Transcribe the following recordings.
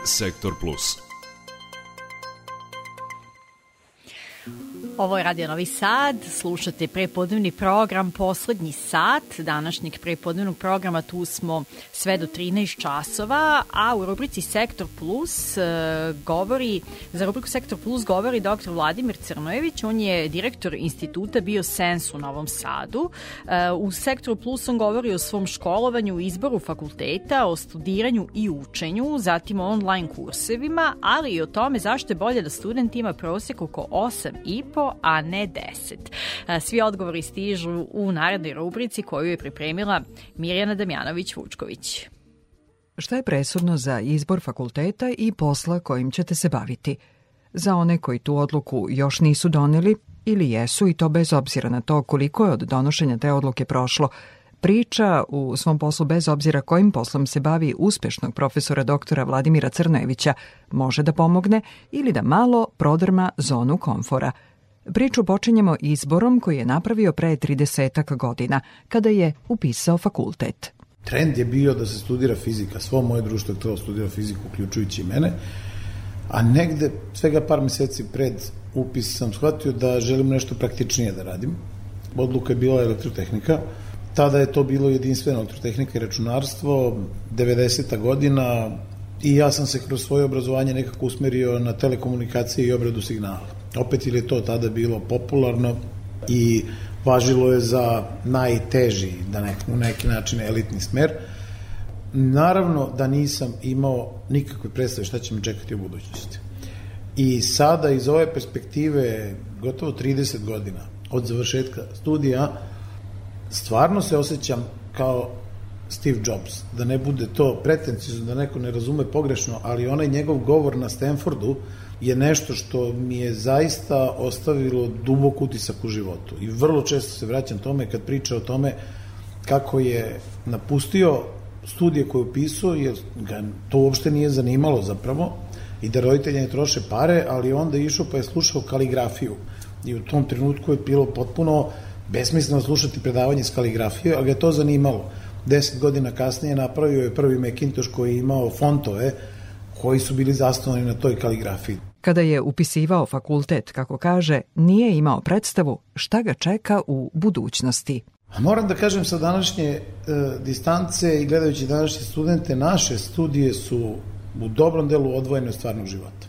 Sektor Plus. Ovo je Radio Novi Sad, slušate prepodnevni program Poslednji sat današnjeg prepodnevnog programa. Tu smo sve do 13 časova, a u rubrici Sektor Plus za rubriku Sektor Plus govori dr. Vladimir Crnojević. On je direktor instituta Biosens u Novom Sadu. U Sektoru Plus on govori o svom školovanju, izboru fakulteta, o studiranju i učenju, zatim o online kursevima, ali i o tome zašto je bolje da student ima prosek oko 8,5, a ne 10. Svi odgovori stižu u narednoj rubrici koju je pripremila Mirjana Damjanović-Vučković. Šta je presudno za izbor fakulteta i posla kojim ćete se baviti? Za one koji tu odluku još nisu doneli ili jesu, i to bez obzira na to koliko je od donošenja te odluke prošlo, priča u svom poslu, bez obzira kojim poslom se bavi, uspešnog profesora doktora Vladimira Crnojevića može da pomogne ili da malo prodrma zonu komfora. Priču počinjemo izborom koji je napravio pre 30 godina, kada je upisao fakultet. Trend je bio da se studira fizika. Svo moje društvo je htelo studira fiziku, uključujući i mene. A negde, svega par meseci pred upis sam shvatio da želim nešto praktičnije da radim. Odluka je bila elektrotehnika. Tada je to bilo jedinstveno, elektrotehnika i računarstvo, 90. godina, i ja sam se kroz svoje obrazovanje nekako usmerio na telekomunikacije i obradu signala. Opet ili je to tada bilo popularno i važilo je za najteži, na neki način elitni smer. Naravno da nisam imao nikakve predstave šta će me čekati u budućnosti. I sada iz ove perspektive gotovo 30 godina od završetka studija stvarno se osjećam kao Steve Jobs. Da ne bude to pretencijno, da neko ne razume pogrešno, ali onaj njegov govor na Stanfordu je nešto što mi je zaista ostavilo dubok utisak u životu. I vrlo često se vraćam tome kad priča o tome kako je napustio studije koje je upisao, jer ga to uopšte nije zanimalo zapravo, i da roditelji ne troše pare, ali onda je išao pa je slušao kaligrafiju. I u tom trenutku je bilo potpuno besmisleno slušati predavanje iz kaligrafije, ali ga je to zanimalo. 10 godina kasnije napravio je prvi Macintosh koji je imao fontove koji su bili zasnovani na toj kaligrafiji. Kada je upisivao fakultet, kako kaže, nije imao predstavu šta ga čeka u budućnosti. Moram da kažem, sa današnje distance i gledajući današnje studente, naše studije su u dobrom delu odvojene od stvarnog života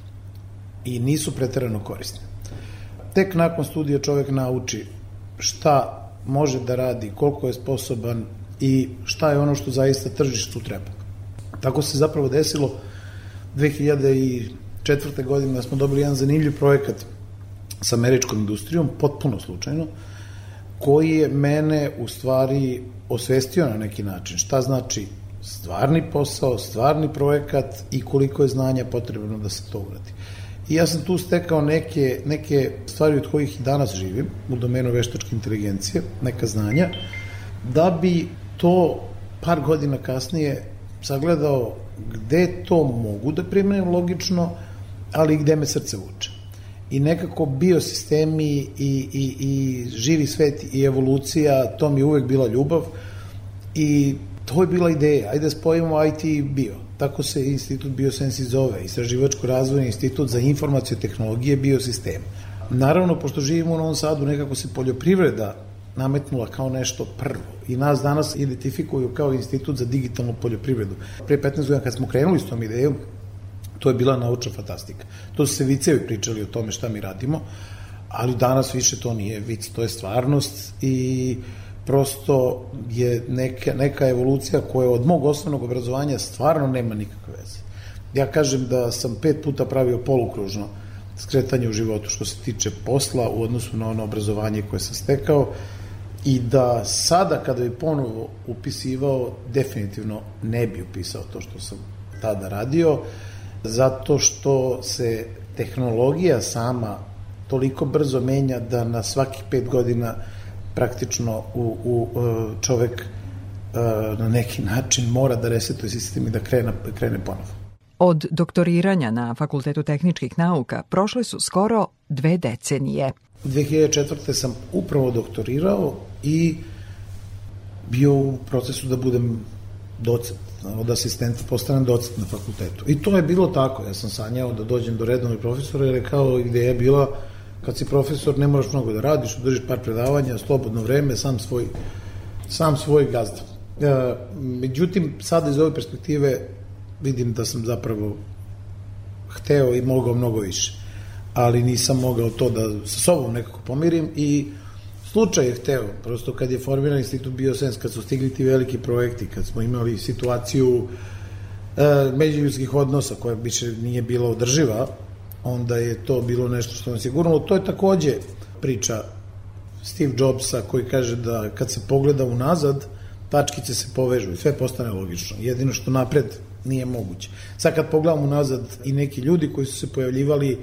i nisu preterano korisne. Tek nakon studija čovek nauči šta može da radi, koliko je sposoban i šta je ono što zaista tržištu treba. Tako se zapravo desilo 2004. godine da smo dobili jedan zanimljiv projekat sa američkom industrijom, potpuno slučajno, koji je mene u stvari osvestio na neki način. Šta znači stvarni posao, stvarni projekat i koliko je znanja potrebno da se to uradi. I ja sam tu stekao neke stvari od kojih i danas živim u domenu veštačke inteligencije, neka znanja, da bi to par godina kasnije sagledao gde to mogu da primenim logično, ali i gde me srce vuče. I nekako biosistemi i živi svet i evolucija, to mi je uvek bila ljubav i to je bila ideja. Ajde da spojimo IT i bio. Tako se institut Biosens i zove, Istraživačko-razvojni institut za informacije, tehnologije, biosistem. Naravno, pošto živimo u Novom Sadu, nekako se poljoprivreda nametnula kao nešto prvo i nas danas identifikuju kao institut za digitalnu poljoprivredu. Pre 15 godina kad smo krenuli s tom idejom, to je bila naučna fantastika. To su se vicevi pričali o tome šta mi radimo, ali danas više to nije vic, to je stvarnost i prosto je neka evolucija koja od mog osnovnog obrazovanja stvarno nema nikakve veze. Ja kažem da sam 5 puta pravio polukružno skretanje u životu što se tiče posla u odnosu na ono obrazovanje koje sam stekao i da sada kada bi ponovo upisivao, definitivno ne bi upisao to što sam tada radio, zato što se tehnologija sama toliko brzo menja da na svakih 5 godina praktično čovek na neki način mora da resetuje sistem i da krene ponovo. Od doktoriranja na Fakultetu tehničkih nauka prošle su skoro 2 decenije. 2004. sam upravo doktorirao i bio u procesu da budem docent. od asistenta postanem docent na fakultetu. I to je bilo tako, ja sam sanjao da dođem do redovnog profesora, jer je kao ideja je bila, kad si profesor ne moraš mnogo da radiš, držiš par predavanja, slobodno vreme, sam svoj gazda. Međutim, sada iz ove perspektive vidim da sam zapravo hteo i mogao mnogo više, ali nisam mogao to da sa sobom nekako pomirim i slučaj je hteo, prosto kad je formiran Institut Biosens, kad su stigli ti veliki projekti, kad smo imali situaciju međuljudskih odnosa koja više nije bila održiva, onda je to bilo nešto što nas je gurnulo. To je takođe priča Steve Jobsa koji kaže da kad se pogleda unazad, tačkice se povežu i sve postane logično. Jedino što napred nije moguće. Sad kad pogledamo unazad i neki ljudi koji su se pojavljivali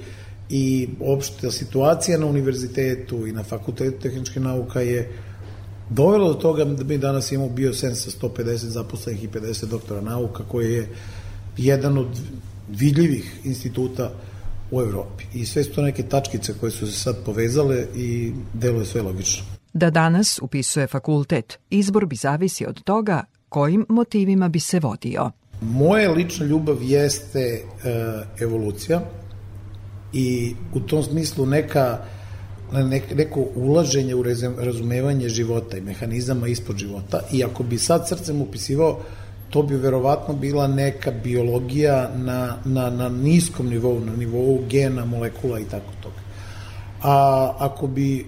i opšta situacija na univerzitetu i na fakultetu tehničke nauka je dovelo do toga da mi danas imamo Biosens sa 150 zaposlenih i 50 doktora nauka, koji je jedan od vidljivih instituta u Evropi. I sve su to neke tačkice koje su se sad povezale i deluje sve logično. Da danas upisuje fakultet, izbor bi zavisi od toga kojim motivima bi se vodio. Moja lična ljubav jeste evolucija i u tom smislu neko ulaženje u razumevanje života i mehanizama ispod života, i ako bi sad srcem upisivao, to bi verovatno bila neka biologija na niskom nivou, na nivou gena, molekula i tako toga. A ako bi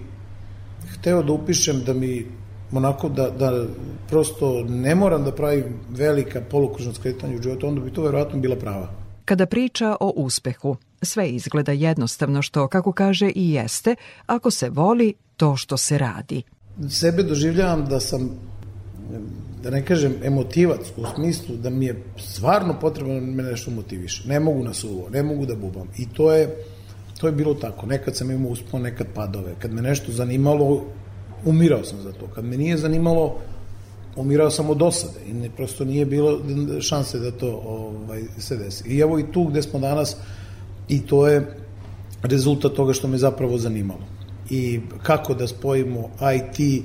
hteo da upišem da mi onako da prosto ne moram da pravim velika polukružna skretanja u životu, onda bi to verovatno bila prava. Kada priča o uspehu, sve izgleda jednostavno, što, kako kaže, i jeste, ako se voli to što se radi. Sebe doživljavam da sam, da ne kažem emotivac, u smislu da mi je stvarno potrebno da me nešto motiviše. Ne mogu na suvo, ne mogu da bubam. I to je bilo tako. Nekad sam imao uspon, nekad padove. Kad me nešto zanimalo, umirao sam za to. Kad me nije zanimalo, umirao sam od dosade i prosto nije bilo šanse da to se desi. I evo i tu gde smo danas, i to je rezultat toga što me zapravo zanimalo. I kako da spojimo IT,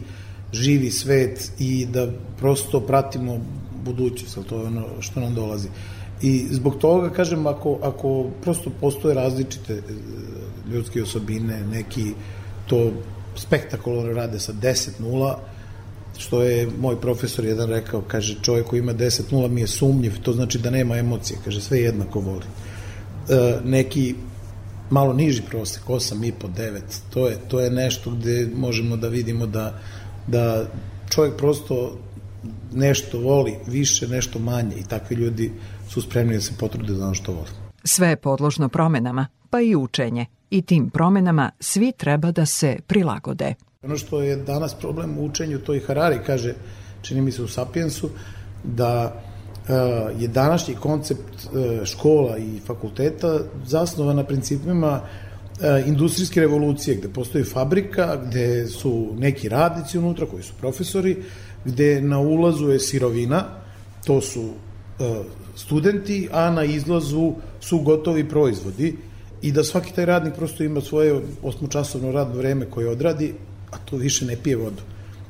živi svet i da prosto pratimo budućnost, to je ono što nam dolazi. I zbog toga, kažem, ako prosto postoje različite ljudske osobine, neki to spektakularno rade sa 10-0, što je moj profesor jedan rekao, kaže, čovjek koji ima 10-0 mi je sumnjiv, to znači da nema emocije, kaže, sve jednako voli. Neki malo niži prosek, 8,5-9, to je nešto gde možemo da vidimo da čovjek prosto nešto voli više, nešto manje, i takvi ljudi su spremni da se potrude za ono što voli. Sve je podložno promenama, pa i učenje. I tim promenama svi treba da se prilagode. Ono što je danas problem u učenju, to i Harari kaže, čini mi se u Sapiensu, da je današnji koncept škola i fakulteta zasnovan na principima industrijske revolucije, gde postoji fabrika, gde su neki radnici unutra koji su profesori, gde na ulazu je sirovina, to su studenti, a na izlazu su gotovi proizvodi, i da svaki taj radnik prosto ima svoje 8-časovno radno vreme koje odradi, a to više ne pije vodu.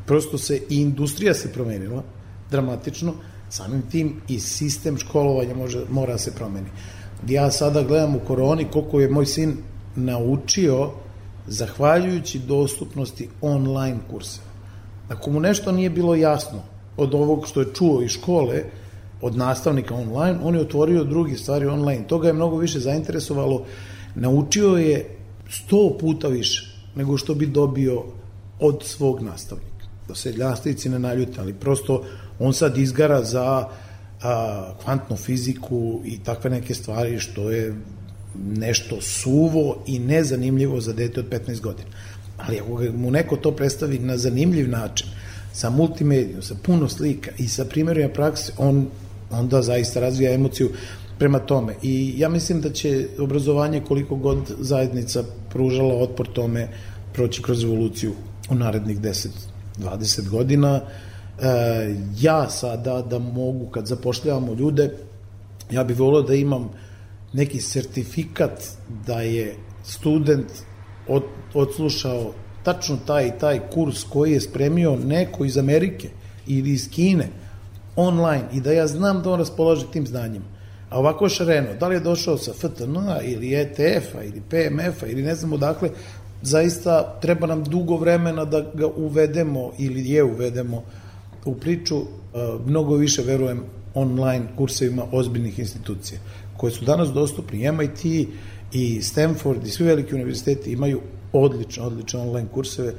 Prosto se i industrija se promenila dramatično, samim tim i sistem školovanja mora se promeni. Ja sada gledam u koroni koliko je moj sin naučio zahvaljujući dostupnosti online kursa. Ako mu nešto nije bilo jasno od ovog što je čuo iz škole, od nastavnika online, on je otvorio drugi stvari online. Toga je mnogo više zainteresovalo, naučio je 100 puta više nego što bi dobio od svog nastavnika. Da se nastavnici ne naljute, ali prosto on sad izgara za kvantnu fiziku i takve neke stvari, što je nešto suvo i nezanimljivo za dete od 15 godina. Ali ako mu neko to predstavi na zanimljiv način, sa multimedijom, sa puno slika i sa primjerima prakse, on onda zaista razvija emociju prema tome. I ja mislim da će obrazovanje, koliko god zajednica pružala otpor tome, proći kroz evoluciju u narednih 10-20 godina. Ja sada da mogu, kad zapošljavamo ljude, ja bih volio da imam neki sertifikat da je student odslušao tačno taj i taj kurs koji je spremio neko iz Amerike ili iz Kine. online i da ja znam da on raspolaže tim znanjem. A ovako šareno, da li je došao sa FTN-a ili ETF-a ili PMF-a ili ne znam odakle, zaista treba nam dugo vremena da ga uvedemo ili je uvedemo u priču. Mnogo više verujem online kursevima ozbiljnih institucija koje su danas dostupni. MIT i Stanford i svi veliki univerziteti imaju odlične online kurseve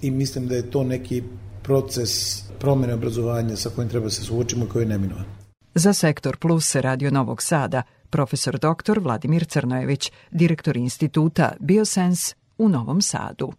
i mislim da je to neki proces promene obrazovanja sa kojim treba se suočimo i koji je neminovan. Za Sektor Plus Radio Novog Sada, profesor dr. Vladimir Crnojević, direktor instituta Biosens u Novom Sadu.